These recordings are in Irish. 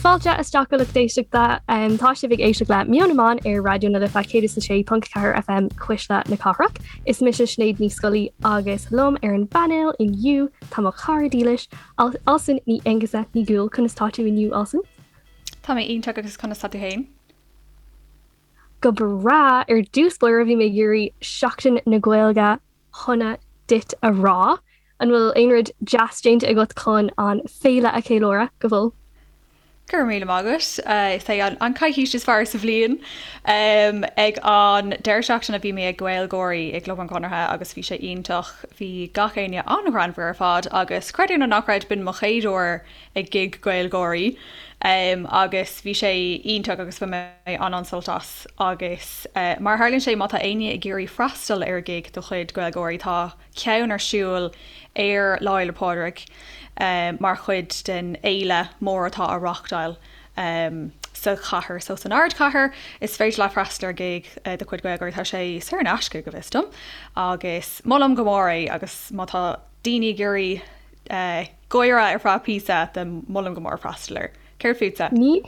Fáilte isteach a lucht éisteachta. Tá sibh ag éisteacht le Meon na mBan ar Raidió na Life 106.4 FM Cuisle na Cathrach. Is mise Sinéad Ní Scolaí agus liom ar an bpainéal inniu tá mo chara dílis, Alison Ní Aonghusa Ní Dhúill. Conas tá tú inniu, Alison? Tá mé iontach agus conas tá tú féin? Go breá! Ar dtús báire bhí mé ag iarraidh Seachtain na Gaeilge shona duit a rá. An bhfuil aon rud deas déanta agat chun an féile a cheiliúradh? Go bhfuil. Go raibh míle maith agat. Is é an coicís is fearr sa bhliain. Ag an deireadh seachtaine bhí mé ag GaelGÁIRÍ i gClub an Chonartha agus bhí sé iontach. Bhí gach éinne an-ghreannmhar ar fad agus creid é nó ná creid b'in mo chéad uair ag gig GaelGÁIRÍ agus bhí sé iontach agus bhain mé an-an-sult as agus mar a tharlaíonn sé má tá éinne ag iarraidh freastal ar ghig de chuid GaelGÁIRÍ tá ceann ar siúl ar Lá Fhéile Pádraig mar chuid den fhéile mór atá á reáchtáil sa chathair so san ardchathair is féidir leat freastal ar ghig de chuid GaelGÁIRÍ tá sé saor in aisce go bhfios dom agus molaim go mór é agus má tá daoine ag iarraidh gáire ar feadh píosa then molaim go mór freastal air. Céard fútsa? Ní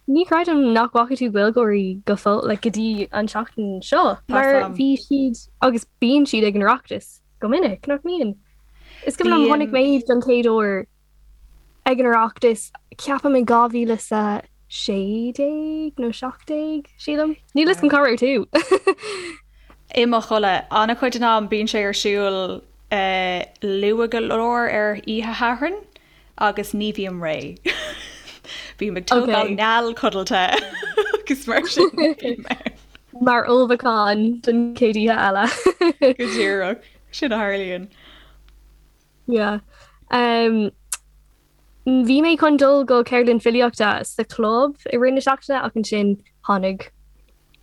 ní chreidim nach bhfaca tú GaelGÁIRÍ go fóill, like, go dtí an tseachtain seo, mar bhí siad agus bíonn siad ag an Oireachtas go minic, nach mbíonn? Is cuimhin liom chonaic mé iad don chéad uair ag an Oireachtas, ceapaim in 2016 nó 17, sílim. Níl fhios agam cá raibh tú. I mo chodladh. An-chuid den am bíonn sé ar siúl luath go leor ar oíche Shathairn agus ní bhím réidh. Bím ag tógáil neal codlata agus mar sin bím ann. Mar ullmhúchán don chéad oíche eile. Go díreach. Sin a tharlaíonn. Yeah. Um, bhí mé chun dul go ceardlann filíochta sa chlub i rith na seachtaine ach ansin tháinig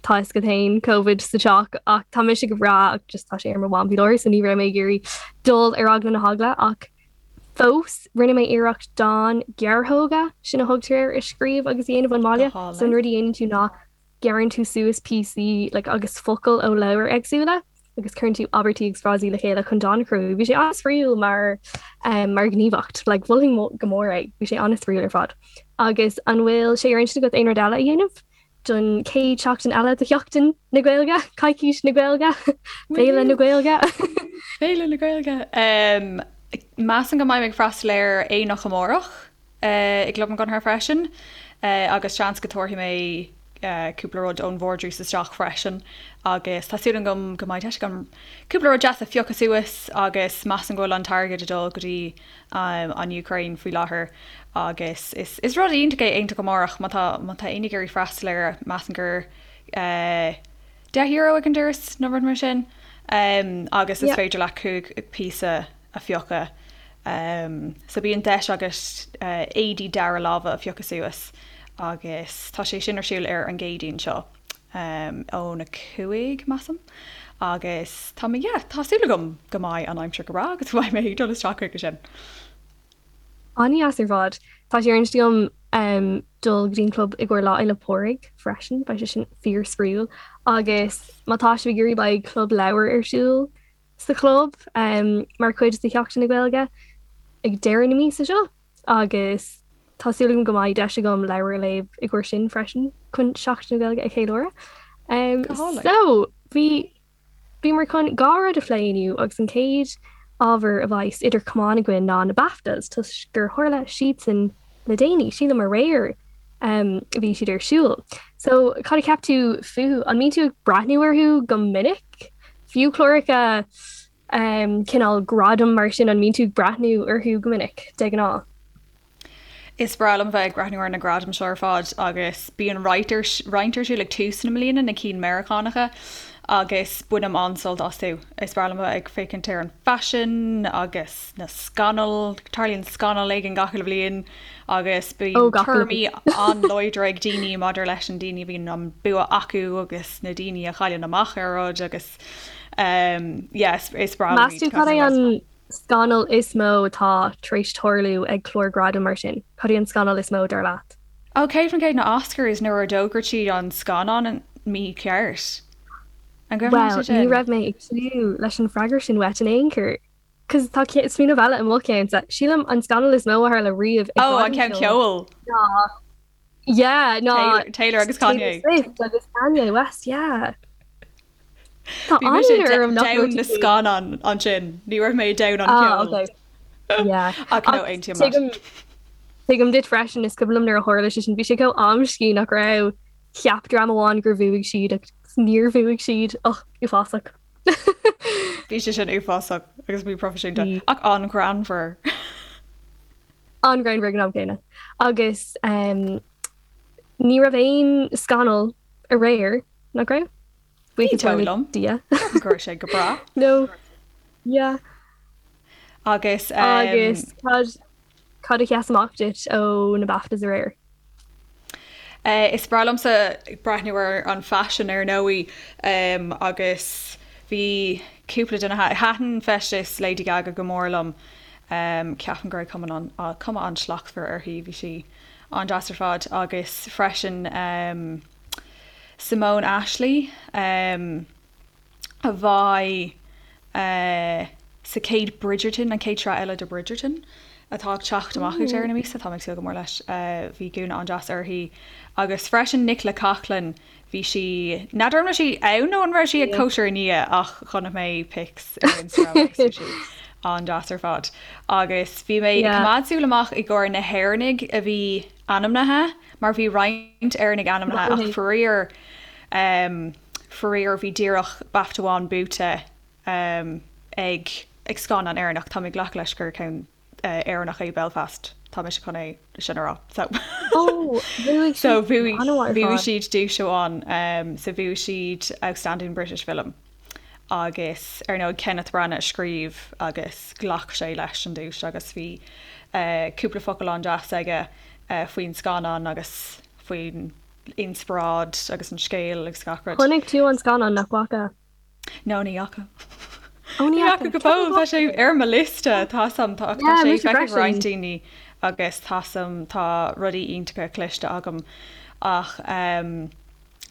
tá fhios agat féin Covid sa teach ach tá mise go breá ach just tá sé ar mo mham faoi láthair so ní raibh mé ag iarraidh dul ar eagla na heagla ach fós rinne mé iarracht dán gearrthóga sin a thugtar air a scríobh agus a dhéanamh ón mbaile so an rud a dhéanann tú ná gearrann tú suas píosaí like agus focail ó leabhair éagsúla agus cuireann tú abairtí agus frásaí le chéile chun dán a chruthú. Bhí sé an-spraíúil mar um, mar ghníomhaíocht, like mholfainn go mór é, bhí sé an-spraíúil ar fad. Agus an bhfuil sé ar intinn agat aon rud eile a dhéanamh don chéad seachtain eile de Sheachtain na Gaeilge, Coicís na Gaeilge, Féile na Gaeilge? Féile na Gaeilge. Um, measaim go mbeidh mé ag freastal ar aonach amárach. i gClub an Chonartha freisin agus seans go dtabharfaidh mé cúpla rud ón vardrús isteach freisin agus tá súil agam go mbeidh deis agam cúpla rud deas a phiocadh suas agus measaim go bhfuil an t-airgead ag dul go dtí an Úcráin faoi láthair agus is is rud iontach é aonach amárach má tá má tá éinne ag iarraidh freastal air measaim gur €10 ag an doras nó rud mar sin agus is féidir leat 5 píosa a phiocadh. So bíonn deis agat éadaí dara láimhe a phiocadh suas agus tá sé sin ar siúl ar an gCéadaoin seo óna 5, measaim. Agus tá mé, yeah, tá súil agam go mbeidh an aimsir go breá agus go mbeidh mé ag dul isteach chuige sin. An-dheas ar fad. Tá sé ar intinn agam dul go dtí an club i gcomhair Lá Fhéile Pádraig freisin, beidh sé sin fíor-spraíúil. Agus má tá sibh ag iarraidh beidh club leabhar ar siúl sa chlub mar chuid de Sheachtain na Gaeilge ag deireadh na míosa seo agus tá súil agam go mbeidh deis agam leabhar a léamh i gcomhair sin freisin chun Seachtain na Gaeilge a cheiliúradh. So bhí bhíomar chun dhá rud a phlé inniu agus an chéad ábhar a bheas idir chamáin againn ná na BAFTAs toisc gur tharla siadsan le déanaí, sílim aréir a bhí siad ar siúl. So cad a cheap tú fúthu? An mbíonn tú ag breathnú orthu go minic? Fiú cláracha cineál gradam mar sin, an mbíonn tú ag breathnú orthu go minic, de ghnáth? Is breá liom bheith ag breathnú ar na gradaim seo ar fad agus bíonn roinnt ar roinnt ar siúl ag tús na mbliana, na cinn Meiriceánacha, agus bainim an-sult astu. Is breá liom bheith ag féachaint ar an faisean agus na scannail, tarlaíonn scannal éigin gach uile bhliain agus bíonn tuairimí an-láidre ag daoine maidir leis an daoine a bhíonn an bua acu agus na daoine a chailleann amach ar rud agus yeah, is breá liom Meas tú cad é an scannal is mó atá tar éis tarlú ag clár gradaim mar sin? Cad é an scannal is mó dar leat? Ó, 100% na Oscars nuair a d'fhógair siad an scannán mícheart. An gcuimhin leat é Bhuel, ní sin? raibh mé ag tnúth leis an freagra sin uait in aon chor. Cos tá smaoineamh eile i mo cheannsa. Sílim an scannal is mó a tharla riamh ag Ó, an ceann ceoil. ná. Yeah, ná Taylor agus Kanye. Taylor Swift agus Kanye West, yeah. Tá Bhí mise an-ionadh orm nach raibh domhan na scannán ansin, ní raibh mé domhan an Ah, cheoil. okay. Yeah. Ach no, aontaím leat. Tuigim tuigim duit freisin, is cuimhin liom nuair a tharla sé sin, bhí sé chomh amscaí nach raibh cheap dream amháin gur bhuaigh siad agus níor bhuaigh siad. Och, uafásach. Bhí sé sin uafásach agus míphroifisiúnta, Bhí. ach an-ghreannmhar. An-ghreannmhar ag an am céanna. Agus um, ní raibh aon scannal aréir, nach raibh? Ní Buíochas dóigh le liom. Dia. Ceapaim go raibh sé go breá. No. Yeah. Agus um, Agus cad cad a sheas amach duit ó na BAFTAs aréir? Uh, is breá liomsa breathnú ar an faisean ar ndóigh um, agus bhí cúpla duine thaitin feisteas Lady Gaga go mór liom. Um, ceapaim go raibh cuma an, uh, cuma an-slachtmhar uirthi, bhí sí an-deas ar fad agus freisin um, Simone Ashley um, a bheidh uh, sa chéad Bridgerton, an chéad sraith eile de Bridgerton atá ag teacht amach ag deireadh na míosa, táim ag súil go mór leis. Uh, bhí gúna an-deas uirthi agus freisin Nicola Coughlan, bhí sí, n'fheadar an raibh sí ann nó an raibh sí ag cóisir i ndiaidh ach chonaic mé pics ar Instagram agus bhí sí an-deas ar fad. Agus bhí mé ag coimeád súil amach i gcomhair na hÉireannaigh a bhí ainmnithe mar bhí roinnt Éireannaigh ainmnithe ach faraor um, faraor bhí díreach BAFTA amháin buaite um, ag ag scannán Éireannach. Tá mé ag glacadh leis gur ceann uh, Éireannach é Belfast. Tá mise chun é sin a rá. So Oh, bhuaigh so siad bhuaigh an-mhaith ar bhuaigh fad. siad duais amháin um, so bhuaigh siad Outstanding British Film agus ar ndóigh Kenneth Branagh a scríobh agus ghlac sé leis an duais agus bhí uh, cúpla focal an-deas aige uh, faoin scannán agus faoin inspioráid agus an scéal agus gach rud. Chonaic tú an scannán nach bhfaca? No ní fhaca. Ó ní Ní fhaca fhaca. go fóill, tá sé ar mo liosta, tá sam tá Yeah, sé mise feicthe ag freisin. roinnt daoine agus tá sam tá rudaí iontacha cloiste agam ach um,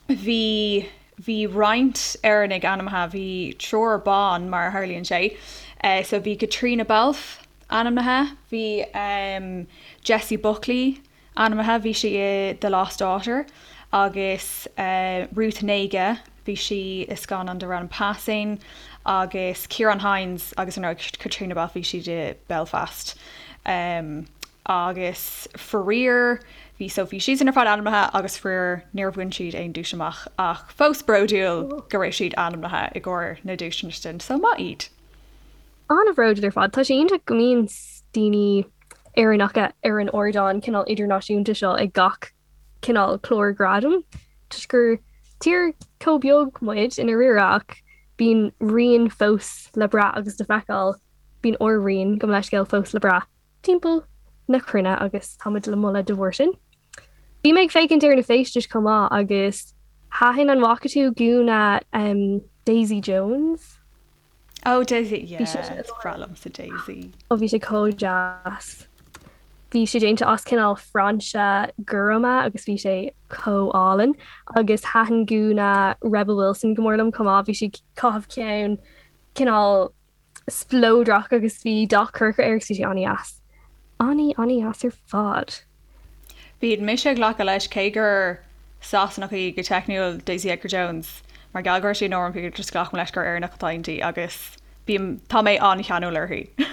bhí bhí roinnt Éireannaigh ainmnithe, bhí triúr ban mar a tharlaíonn sé, uh, so bhí Caitríona Balfe ainmnithe, bhí um, Jessie Buckley ainmnithe, bhí sí i The Lost Daughter, agus Ruth Negga, bhí sí i scannán darb ainm Passing, agus Ciarán Hinds agus ar ndóigh Caitríona Balfe, bhí siad i Belfast. Agus faraor, bhí so bhí siadsan ar fad ainmnithe agus faraor níor bhain siad aon duais amach ach fós bródúil go raibh siad ainmnithe i gcomhair na duaiseanna sin, so maith iad. An-bhródúil ar fad. Tá sé iontach go mbíonn daoine Éireannacha ar an ardán cineál idirnáisiúnta seo ag gach cineál clár gradaim toisc gur tír chomh beag muid i ndáiríre ach bíonn rian fós le brath agus le feiceáil, bíonn ár rian, gabh mo leithscéal, fós le brath timpeall na cruinne agus táimid le moladh de bharr sin. Bhí mé ag féachaint ar na feistis chomh maith agus thaitin an bhfaca tú gúna Daisy Jones? Oh Daisy, yeah, is breá liomsa Daisy. Oh bhí sé chomh deas. Bhí sé déanta as cineál frainse gorma agus bhí sé chomh álainn. Agus thaitin gúna Rebel Wilson go mór liom chomh maith, bhí sí ag caitheamh ceann cineál spleodrach agus bhí dath corcra air agus bhí sé an-dheas. An-an-dheas ar fad. Bíonn mise ag glacadh leis, cé gur Sasanach í go teicniúil, Daisy Edgar Jones, mar gheall go raibh sí in Norman Peter, just glacaim leis gur Éireannach atá inti agus bím, tá mé an-cheanúil uirthi.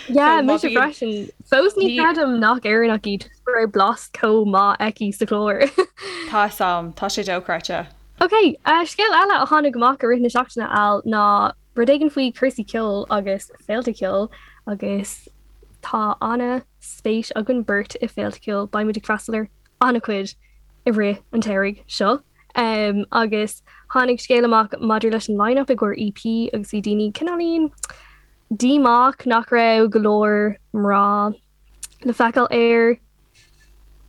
Yeah, So má mise bhíonn, freisin. Fós ní ní, chreidim nach Éireannach í toisc go raibh blas chomh maith aici sa chlár. tá 'fhios a'm, tá sé dochreidte. Ok, scéal eile a tháinig amach i rith na seachtaine Al ná rud éigin faoi cúrsaí ceoil agus féilte ceoil agus tá ana spéis againn beirt i féilte ceoil, beidh muid ag freastal ar an-chuid i rith an tsamhraidh seo. Agus tháinig scéal amach maidir leis an line-up i gcomhair EP agus bhí daoine cineáilín díomách nach raibh go leor mná le feiceáil air,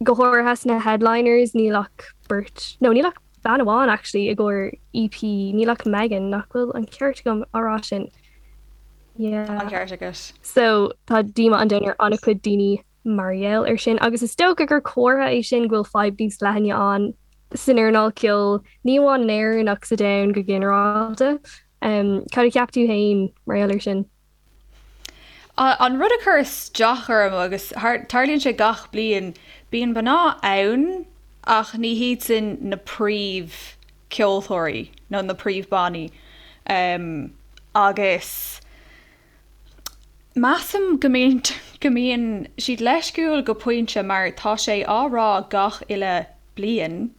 go háirithe sna headliners, níl ach beirt, no níl ach bean amháin actually i gcomhair EP, níl ach Megan, nach bhfuil an ceart agam á rá sin? Yeah. Tá an ceart agat. So tá díomá an domhain ar an-chuid daoine mar gheall ar sin agus is dócha gur comhartha é sin go bhfuil fadhb níos leithne ann san earnáil ceoil, ní amháin in Éirinn ach sa domhan go ginearálta. Um, cad a cheap tú féin mar gheall ar sin? An rud a chuir isteach orm, agus tarlaíonn sé gach bliain, Bíonn mná ann ach ní hiad sin na príomh ceoltóirí nó na príomh bannaí agus measaim go mbíonn go mbíonn siad leisciúil go pointe mar tá sé á rá gach uile bliain,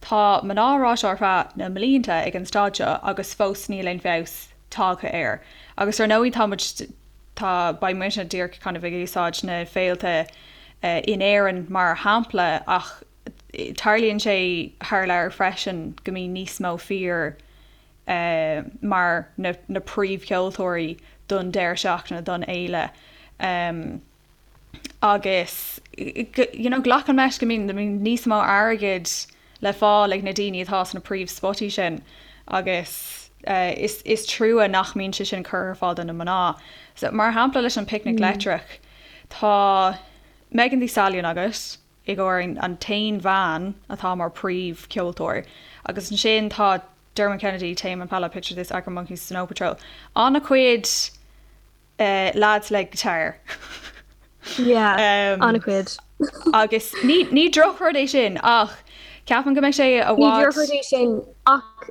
tá mná á rá seo ar feadh na mblianta ag an staid seo agus fós níl aon feabhas tagtha air. Agus ar ndóigh tá muid, tá, beidh muidne díreach kind of ag úsáid na féilte in Éirinn mar shampla ach tarlaíonn sé thar lear freisin go mbíonn níos mó fir mar na na príomhcheoltóirí don deireadh seachtaine, don fhéile. Agus you know glacaim leis go mbíonn níos mó airgid le fáil ag na daoine atá sna príomhspotaí sin agus is is trua nach mbíonn sé sin curtha ar fáil do na mná. So mar shampla leis an Picnic Leictreach tá Megan Thee Stallion agat i gcomhair an t-aon bhean atá mar príomhcheoltóir agus ansin tá Dermot Kennedy, Tame Impala, Picture This, Arctic Monkeys, Snow Patrol. An-chuid lads le guitar. Yeah, an-chuid. Agus ní ní drochrud é sin ach ceapaim go mbeidh sé i bhfad. Ní drochrud é sin ach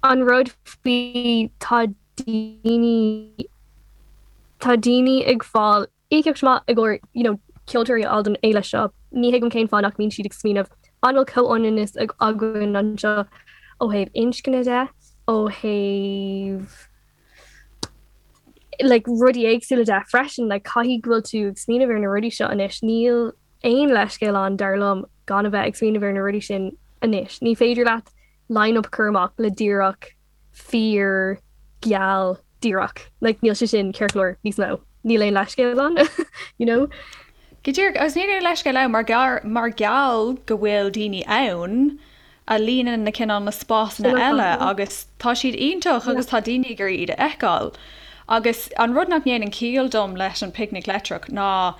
an rud faoi tá daoine tá daoine ag fáil íocaíocht maith i gcomhair you know ceoltóirí a fháil don fhéile seo. Ní thuigim cén fáth nach mbíonn siad ag smaoineamh an bhfuil comhionannas againn anseo ó thaobh inscne de, ó thaobh like rudaí éagsúla de freisin, like caithfidh go bhfuil tú ag smaoineamh ar na rudaí seo anois. Níl aon leithscéal ann dar liom gan a bheith ag smaoineamh ar na rudaí sin anois. Ní féidir leat line-up a chur amach le díreach fir geal díreach. Like níl sé sin ceart go leor níos mó. Níl aon leithscéal ann, you know? Go díreach, agus níl aon leithscéal ann mar gheall mar gheall go bhfuil daoine ann a líonann na cineál na spásanna eile agus tá siad iontach agus tá daoine ag iarraidh iad a fheiceáil. Agus an rud nach ndéanann ciall dom leis an Picnic Leictreach ná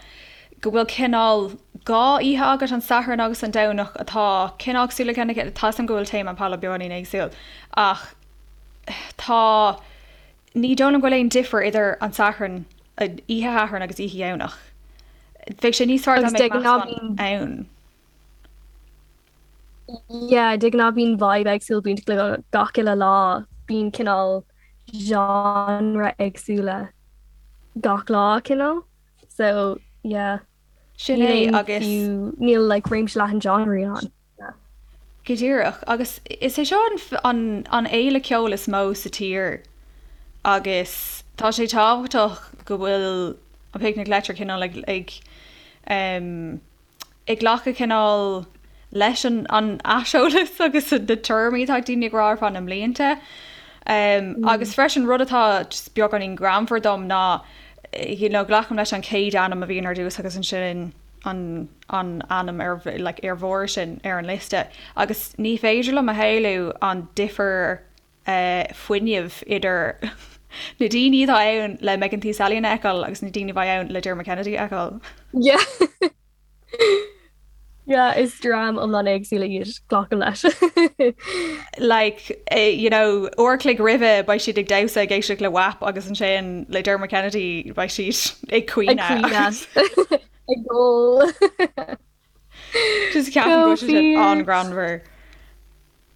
go bhfuil cineál 2 oíche agat, an Satharn agus an Domhnach, atá cineál cosúil le chéile, tá 'fhios a'm go bhfuil Tame Impala beagáinín éagsúil ach tá, ní dóigh liom go bhfuil aon difear idir an Satharn, oíche Shathairn agus oíche Dhomhnach. Bheadh sé níos fearr dá mbeadh meascán ann. Yeah, de ghnáth bíonn vibe éagsúil bainteach le gach uile lá, bíonn cineál genre éagsúla gach lá cineál. So yeah. Sin é agus. Níl like réimse leathan genreí ann. Yeah. Go díreach. Agus is é seo an an fhéile ceoil is mó sa tír agus tá sé tábhachtach go bhfuil an Picnic Leictreach cineál ag ag um, ag glacadh cineál leis an aiseolas agus na tuairimí atá ag daoine ag rá ar feadh na mblianta. Agus freisin rud atá just beagáinín greannmhar dom ná you know glacaim leis an chéad ainm a bhíonn ar dtús agus ansin an an ainm ar like ar bharr sin ar an liosta agus ní féidir liom a shamhlú an difear fuinnimh idir na daoine atá ann le Megan Thee Stallion a fheiceáil agus na daoine a bheidh ann le Dermot Kennedy a fheiceáil. Yeah. Yeah, is dream iomlán éagsúla iad, glacaim leis. Like, you know, uair a chloig roimhe beidh siad ag damhsa ag éisteacht le WAP agus ansin le Dermot Kennedy beidh siad ag caoineadh. Ag caoineadh. Ag gol. Just ceapaim go bhfuil sé sin an-ghreannmhar.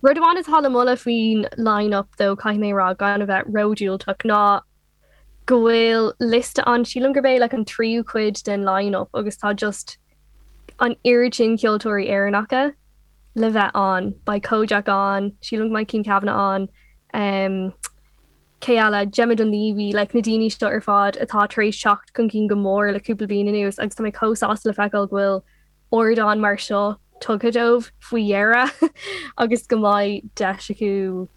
Rud amháin atá le moladh faoin line-up though, caithfidh mé a rá, gan a bheith ródhiúltach, ná go bhfuil liosta ann, sílim gurb é like an tríú cuid den line-up agus tá just an oiread sin ceoltóirí Éireannacha le bheith ann. Beidh Kojaque ann, sílim go mbeidh Cian Kavanagh ann, um, cé eile, Gemma Dunleavy, like na daoine seo ar fad atá tar éis teacht chun cinn go mór le cúpla bliain anuas agus tá mé chomh sásta le feiceáil go bhfuil ardán mar seo tugtha dóibh faoi dheireadh agus go mbeidh deis acu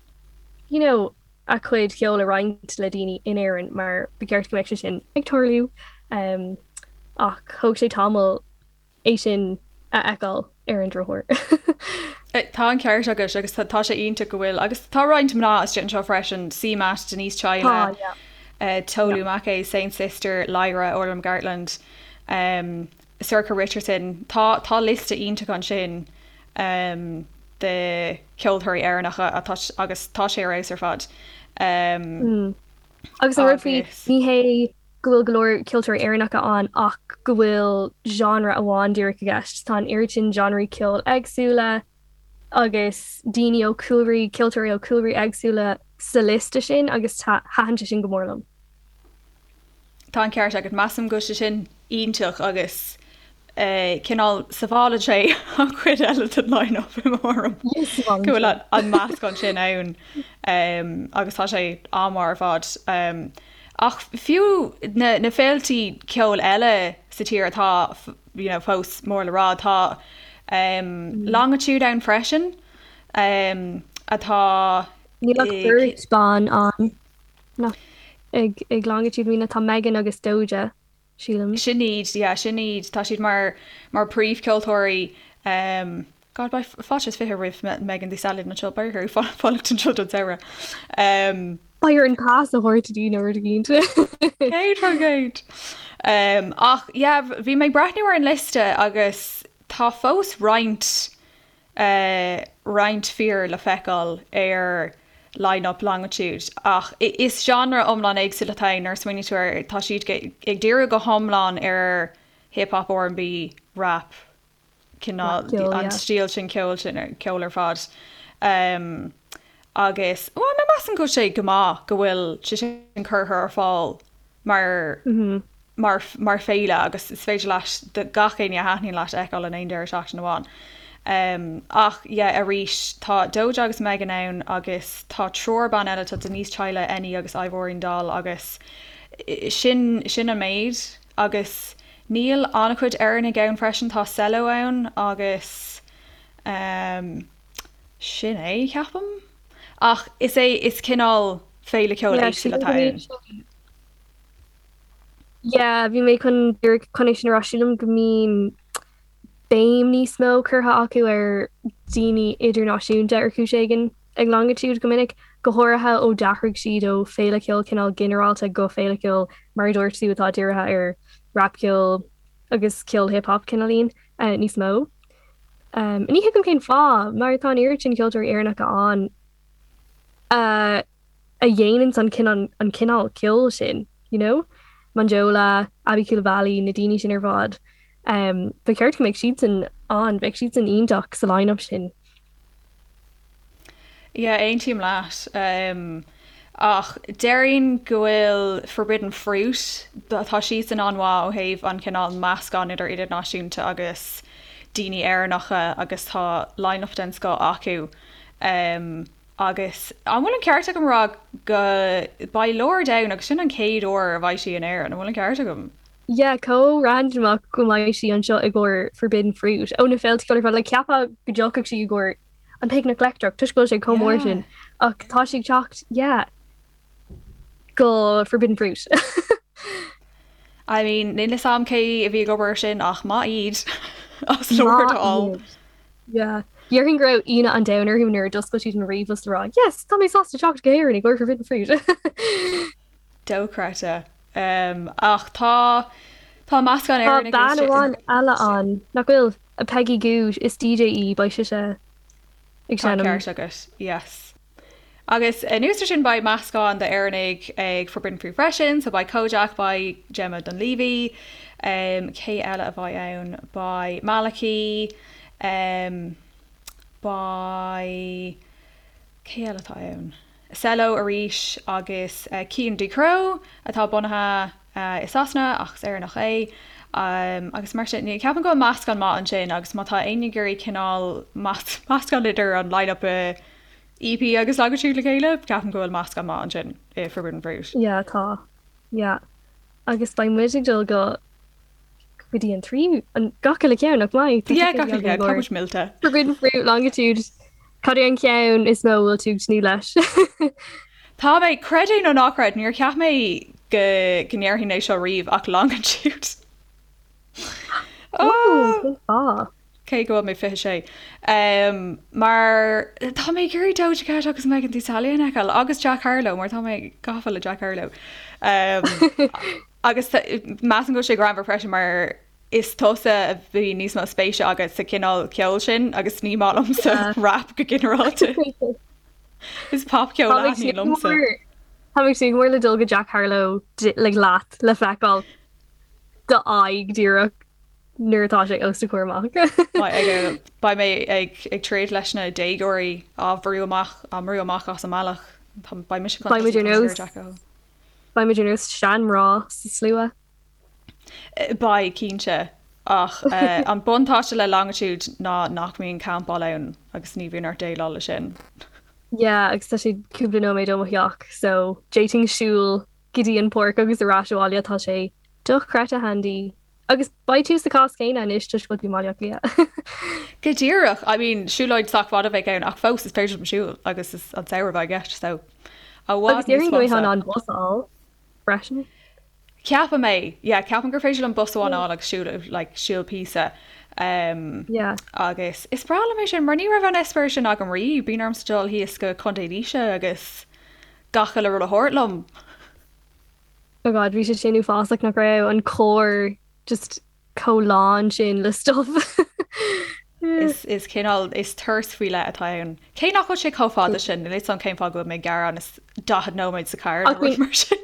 you know a gcuid ceoil a roinnt le daoine in Éirinn mar ba cheart go mbeadh sé sin ag tarlú um, ach thóg sé tamall é sin a fheiceáil ar an drochuair. Tá an ceart agat agus tá sé iontach go bhfuil agus tá roinnt mná istigh anseo freisin, CMAT, Denise Chaila, yeah. uh, Tolu yeah. Makay, Saint Sister, Lyra, Orla McGartland. Um, Sorcha Richardson, Tá tá liosta iontach ansin de cheoltóirí Éireannacha atá agus tá sé ar fheabhas ar fad. Agus an rud faoi, ní hé. go bhfuil go leor ceoltóirí Éireannacha ann ach go bhfuil genre amháin díreach i gceist. Tá an oiread sin genreí ceoil éagsúla agus daoine ó chúlraí, ceoltóirí ó chúlraí éagsúla sa liosta sin agus thaitin sé sin go mór liom. Tá an ceart agat. Measaim go bhfuil sé sin iontach agus cineál sábhálann sé an chuid eile den line-up i mo thuairim. Go bhfuil an meascán sin ann agus tá sé an-mhaith ar fad. Ach fiú na na féiltí ceoil eile sa tír atá you know, fós mór le rá, tá Longitude ann freisin atá Níl ach beirt ban ann nach ag ag Longitude I mean tá Megan agus Doja. sílim. Sin iad, yeah, sin iad. Tá siad mar, mar príomhcheoltóirí. Um, God, beidh fáilte is 20 roimh Megan Thee Stallion anseo, beidh uirthi fanacht anseo don samhradh. Um, Beidh orainn pas a thabhairt di nó rud éicint. 100%. Um, ach, yeah, bhí mé ag breathnú ar an liosta agus tá fós roinnt roinnt fir le feiceáil ar line-up Longitude ach is genre iomlán éagsúil atá ann nuair a smaoiníonn tú air. Tá siad ag díriú go hiomlán ar hip hop, R&B, rap, cineál an stíl sin ceoil sin ceol ar fad. Agus bhuel measaim go bhfuil sé go maith go bhfuil sé sin curtha ar fáil mar mar mar féile agus is féidir leat gach éinne a thaitníonn leat a fheiceáil in aon deireadh seachtaine amháin. Um, ach yeah, arís tá Doja agus Megan ann agus tá triúr ban eile, tá Denise Chaila, Eni agus Ivorian Doll agus sin sin an méid agus níl an-chuid Éireannaigh ann freisin, tá Cello ann agus um, sin é, ceapaim. Ach is é is cineál féile ceoil Yeah, éagsúil atá ann. Yeah, bhí mé chun díreach chun é sin a rá, sílim go mbíonn béim níos mó curtha acu ar daoine idirnáisiúnta ar chúis éigin ag Longitude go minic, go háirithe ó d'athraigh siad ó féile ceoil cineál ginearálta go féile ceoil mar a dúirt tú atá dírithe ar rapcheol agus ceol hip hop cineáilín níos mó. Ní thuigim cén fáth, mar tá an oiread sin ceoltóirí Éireannacha ann a a dhéananns an cineál an cineál ceoil sin, you know? Monjola, Aby Coulibaly, na daoine sin ar fad. Um, ba cheart go mbeadh siadsan ann, bheadh siadsan iontach sa line-up sin. Yeah, aontaím leat. Um, ach déarfainn go bhfuil Forbidden Fruit, tá siadsan an-mhaith ó thaobh an cineál meascán idir idirnáisiúnta agus daoine Éireannacha agus tá line-up den scoth acu. Um, Agus an bhfuil an ceart agam a rá go beidh Lorde ann agus sin an chéad uair a bheidh sí in Éirinn, an bhfuil an ceart agam? Yeah, chomh randamach go mbeidh sí anseo i gcomhair Forbidden Fruit ó na féilte ceoil ar fad, like cheapfá go dtiocfadh sí i gcomhair an Picnic Leictreach toisc go bhfuil sé chomh mór sin ach tá sí ag teacht, yeah, go Forbidden Fruit. I mean, níl fhios a'm cé a bhí ag obair ar sin ach maith iad as Lorde a fháil. Yeah. Déarfainn go raibh ionadh an domhain orthu nuair a d'oscail siad an ríomhphost le rá, Yes, tá mé sásta teacht go hÉirinn i gcomhair Forbidden Fruit. Dochreidte. Um, ach tá tá meascán Tá Éireannach bean istigh. amháin eile ann, nach bhfuil? Peggy Gou, is DJ í, beidh sise ag Tá seinm. ceart agat, yes. Agus anuas ar sin beidh meascán d'Éireannaigh ag Forbidden Fruit freisin, so beidh Kojaque, beidh Gemma Dunleavy, um, cé eile a bheidh ann? Beidh Maliki, um, beidh, cé eile atá ann? Cello arís agus uh, Cian Ducrot atá bunaithe uh, i Sasana ach is Éireannach é. Um, agus mar sin, ceapaim go bhfuil meascán maith ansin agus má tá éinne ag iarraidh cineál meascán idir an line-up i EP agus Longitude le chéile, ceapaim go bhfuil meascán maith ansin i Forbidden Fruit. Yeah, tá. Yeah. Agus beidh muid ag dul go go dtí an tríú, an gach uile ceann, nach mbeidh? Tá Yeah, ticéidí gach uile againn ceann, tá go muid millte. Forbidden Fruit, Longitude. Cad é an ceann is mó a bhfuil tú ag tnúth leis? Tá mé, creid é nó ná creid, níor cheap mé go go ndéarfainn é seo riamh ach Longitude. Ó, Oh! cén fáth? Cé go bhfuil mé 26. Mar tá mé ag iarraidh Doja Cat agus Megan Thee Stallion a fheiceáil agus Jack Harlow mar tá mé gafa le Jack Harlow. Agus measaim go bhfuil sé greannmhar freisin mar is tusa a bhí níos mó spéise agat sa chineál ceoil sin agus ní maith liomsa rap go ginearálta. Is popcheol a thaitníonn liomsa. Tá mé ag tnúth go mór le dul go Jack Harlow like leat le feiceáil do aghaidh díreach nuair atá sé os do chomhair amach. Beidh mé ag troid leis na déagóirí á bhrú amach á mbrú amach as an mbealach. Beidh mise chun tosaigh ar Jack Harlow. Beidh muid ar nós seanmhná sa slua. Beidh, cinnte. Ach an buntáiste le Longitude ná nach mbíonn campáil ann agus ní bhíonn ort déileáil leis sin. Yeah, agus tá sé cúpla nóiméad ó mo theach so d'fhéadfainn siúl go dtí an páirc agus ar ais abhaile, tá sé dochreidte handy. Agus beidh tú sa chás céanna anois toisc go bhfuil tú i mBaile Átha Cliath. Go díreach! I mean, siúlóid sách fada a bheidh ann ach fós is féidir liom siúl agus is an samhradh a bheidh i gceist so i bhfad Agus níos déarfainn go mbeifeá in fusa. ann bus a fháil freisin. Ceapaim é, yeah, ceapaim gur féidir liom bus amháin a fháil agus siúl, like, siúl píosa. Um, Yeah. Agus is breá liom é sin, mar ní raibh an eispéireas sin agam riamh, bíonn ormsa dul thíos go Contae Laoise agus gach uile rud a thabhairt liom. Oh God, bhí sé sin uafásach nach raibh an carr just chomh lán sin le stuff. Is, is cineál, is turas faoi leith atá ann. Cé nach bhfuil sé chomh fada sin, níl 'fhios a'm cén fáth go bhfuil mé ag gearán, is 40 nóiméad sa charr nó Ach rud mar sin.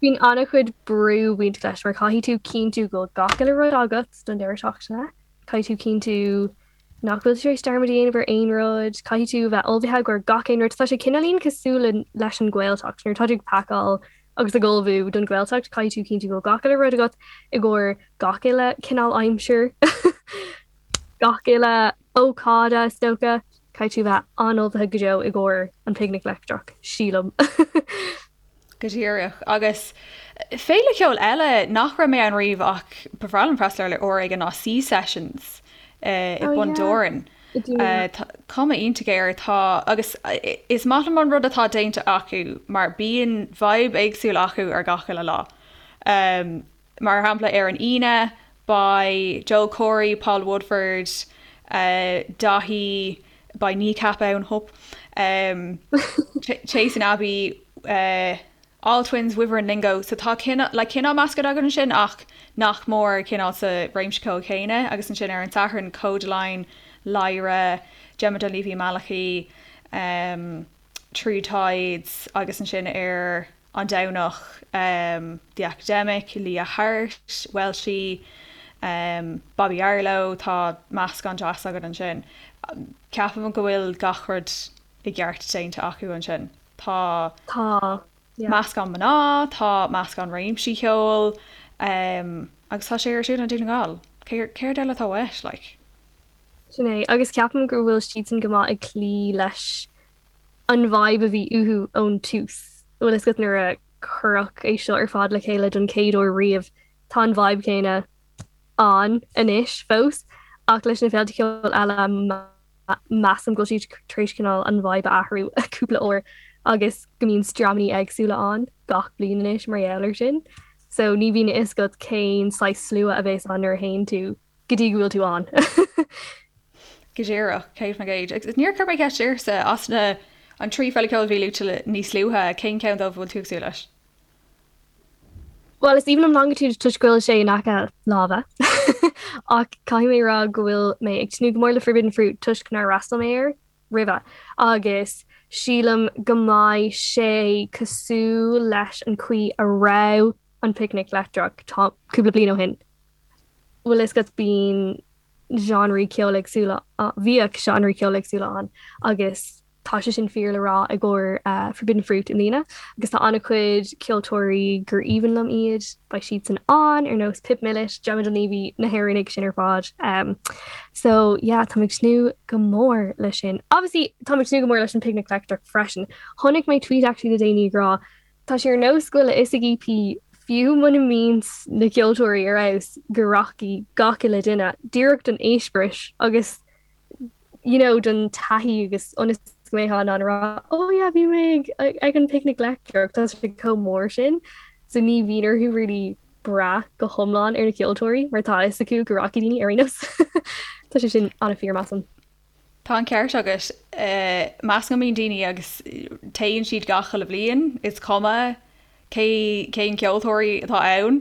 Bíonn an-chuid brú bainteach leis mar caithfidh tú cinntiú go bhfuil gach uile rud agat don deireadh seachtaine, caithfidh tú cinntiú nach bhfuil tú tar éis dearmad a dhéanamh ar aon rud, caithfidh tú bheith ullmhaithe i gcomhair gach aon rud. Tá sé cineáilín cosúil le leis an Ghaeltacht, nuair atá tú ag pacáil agus ag ullmhú don Ghaeltacht, caithfidh tú cinntiú go bhfuil gach uile rud agat i gcomhair gach uile cineál aimsir, gach uile ócáid is dócha. Caithfidh tú bheith an-ullmhaithe go deo i gcomhair an Picnic Leictreach, sílim. Go díreach. Agus féile cheoil eile nach raibh mé ann riamh ach ba bhreá liom freastal air uair éigin ná Sea Sessions i Oh Bun yeah. Dobhráin. I dTír na. Tá cuma iontach air. Tá agus is maith liom an rud atá déanta acu mar bíonn vibe éagsúil acu ar gach uile lá. Mar shampla ar an Aoine beidh Joel Corry, Paul Woodford, Daithí, beidh Kneecap ann, hup, Chasing Abbey, All Twins, Wyvern Lingo, so tá cineál, like cineál meascán againn ansin ach nach mór cineál sa réimse ceoil chéanna agus ansin ar an Satharn Kodaline, Lyra, Gemma Dunleavy Malachy, True Tides agus ansin ar an Domhnach, The Academic, Leah Hart, Welshie, Bobby Arlo, tá meascán deas againn ansin. Ceapaim go bhfuil gach rud i gceart déanta acu ansin. Tá Tá, yeah. meascán mná, tá meascán réimsí ceoil, agus tá sé ar siúl i nDún na nGall. Céard eile atá uait, like? Sin é, agus ceapaim go bhfuil siadsan go maith ag cloí leis an vibe a bhí uathu ón tús. Bhfuil fhios agat nuair a cuireadh é seo ar fad le chéile don chéad uair riamh, tá an vibe céanna ann anois fós, ach leis na féilte ceoil eile measaim go bhfuil siad tar éis cineál an vibe a athrú cúpla uair agus go mbíonn dreamanna éagsúla ann gach bliain anois mar gheall air sin. So ní bhíonn a fhios agat cén saghas slua a bheas ann nuair a théann tú go dtí go bhfuil tú ann. Go díreach, 100%. Agus níor chuir mé ceist ortsa, as na an 3 féile ceoil a bhí luaite níos luaithe, cén ceann dóibh a bhfuil tú ag súil leis? Bhuel, is aoibhinn liom Longitude toisc go bhfuil sé in aice láimhe. Ach caithfidh mé a rá go bhfuil mé ag tnúth go mór le Forbidden Fruit toisc nár fhreastail mé air roimhe. Agus sílim go mbeidh sé cosúil leis an chaoi a raibh an Picnic Leictreach cúpla bliain ó shin. Bhfuil fhios agat bíonn genreí ceoil éagsúla, bhíodh genreí ceoil éagsúla ann agus tá sé sin fíor le rá i gcomhair Forbidden Fruit i mbliana agus tá an-chuid ceoltóirí gur aoibhinn liom iad, beidh siadsan ann, ar nós Pip Millett, Gemma Dunleavy, na hÉireannaigh sin ar fad. So yeah, táim ag tnúth go mór leis sin. Obviously táim ag tnúth go mór leis an Picnic Leictreach freisin. Chonaic mé tweet actually le déanaí ag rá Tá sé ar nós go bhfuil a fhios ag EP, fiú muna mbíonn na ceoltóirí ar fheabhas, go rachaidh gach uile duine díreach don eispéireas agus you know don taithí agus ionas go mbeifeá in ann a rá oh yeah bhí mé ag ag an Picnic Leictreach, tá sé chomh mór sin. So ní bhíonn orthu really brath go hiomlán ar na ceoltóirí mar tá a fhios acu go rachaidh daoine ar aon nós. Tá sé sin an-fhíor measaim. Tá an ceart agat. Measaim go mbíonn daoine agus téann siad gach uile bhliain, is cuma cé cén ceoltóirí atá ann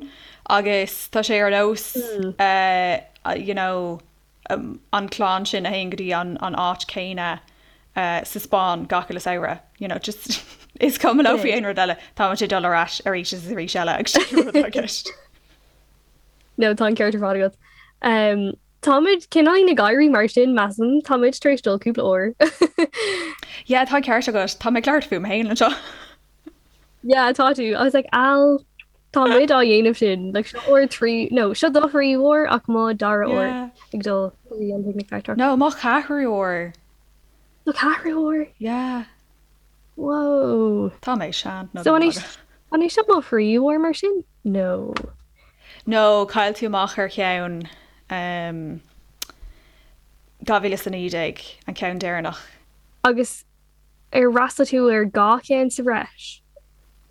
agus tá sé ar nós you know an clann sin a théann go dtí an an áit céanna sa Spáinn gach uile samhradh, you know just. Is cuma leo faoi aon rud eile, tá muid ag dul ar ais arís is arís eile agus sin an rud atá i gceist. No, tá an ceart ar fad agat. Um, Táimid cineáilín ag éirí mar sin, measaim. Táimid tar éis dul cúpla uair. Yeah, tá an ceart agat. Tá mé ag labhairt fúm féin anseo. Yeah, tá tú. I was like, Al, tá muid á dhéanamh sin. Like, seo uair trí, no, seo do thríú huair ach mo dara huair Yeah. ag dul go dtí an Picnic Leictreach. No, mo cheathrú huair. Do cheathrú huair? Yeah. Whoa. Tá mé sean. No, So an é an é seo mo thríú huair mar sin? No. No, chaill tú amach ar cheann um, 2019, an ceann deireanach. Agus ar fhreastail tú ar dhá cheann sa bhreis?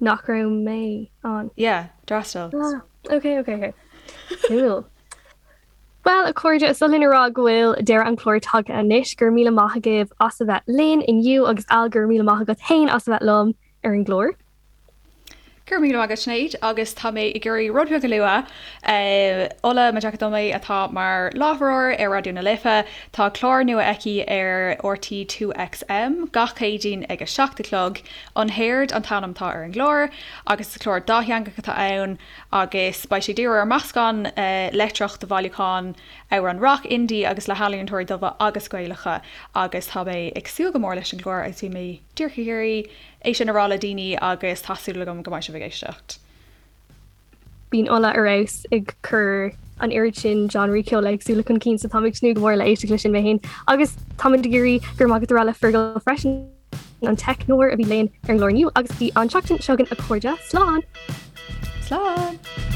Nach raibh mé ann. Yeah, d'fhreastail. Ah, ok, ok, ok. Cool. Bhuel, a chairde, is oth linn a rá go bhfuil deireadh an chláir tagtha anois. Go raibh míle maith agaibh as a bheith linn inniu agus Al, go raibh míle maith agat féin as a bheith liom ar an gclár. Go raibh míle maith agat Sinéad agus tá mé ag iarraidh rud beag a lua. Ola Majekodunmi atá mar láithreoir ar Raidió na Life, tá clár nua aici ar RTÉ 2XM gach Céadaoin ag a 7 a chlog. Unheard an t-ainm atá ar an gclár agus is clár dátheangach atá ann agus beidh sé ag díriú ar meascán leictreach de bhailiúchán amhrán rock, indie agus le healaíontóirí dubha agus Gaelacha agus tá mé ag súil go mór leis an gclár agus bhí mé díreach ag iarraidh é sin a rá le daoine agus tá súil agam go mbeidh sibh ag éisteacht. Bíonn Ola ar fheabhas ag cur an oiread sin genreí ceoil éagsúla chun cinn so táim ag tnúth go mór le éisteacht leis sin mé féin. Agus táimid ag iarraidh go raibh maith agat a rá le Fergal freisin, an teicneoir a bhí linn ar an gclár inniu agus go dtí an tseachtain seo chugainn a chairde, slán! Slán!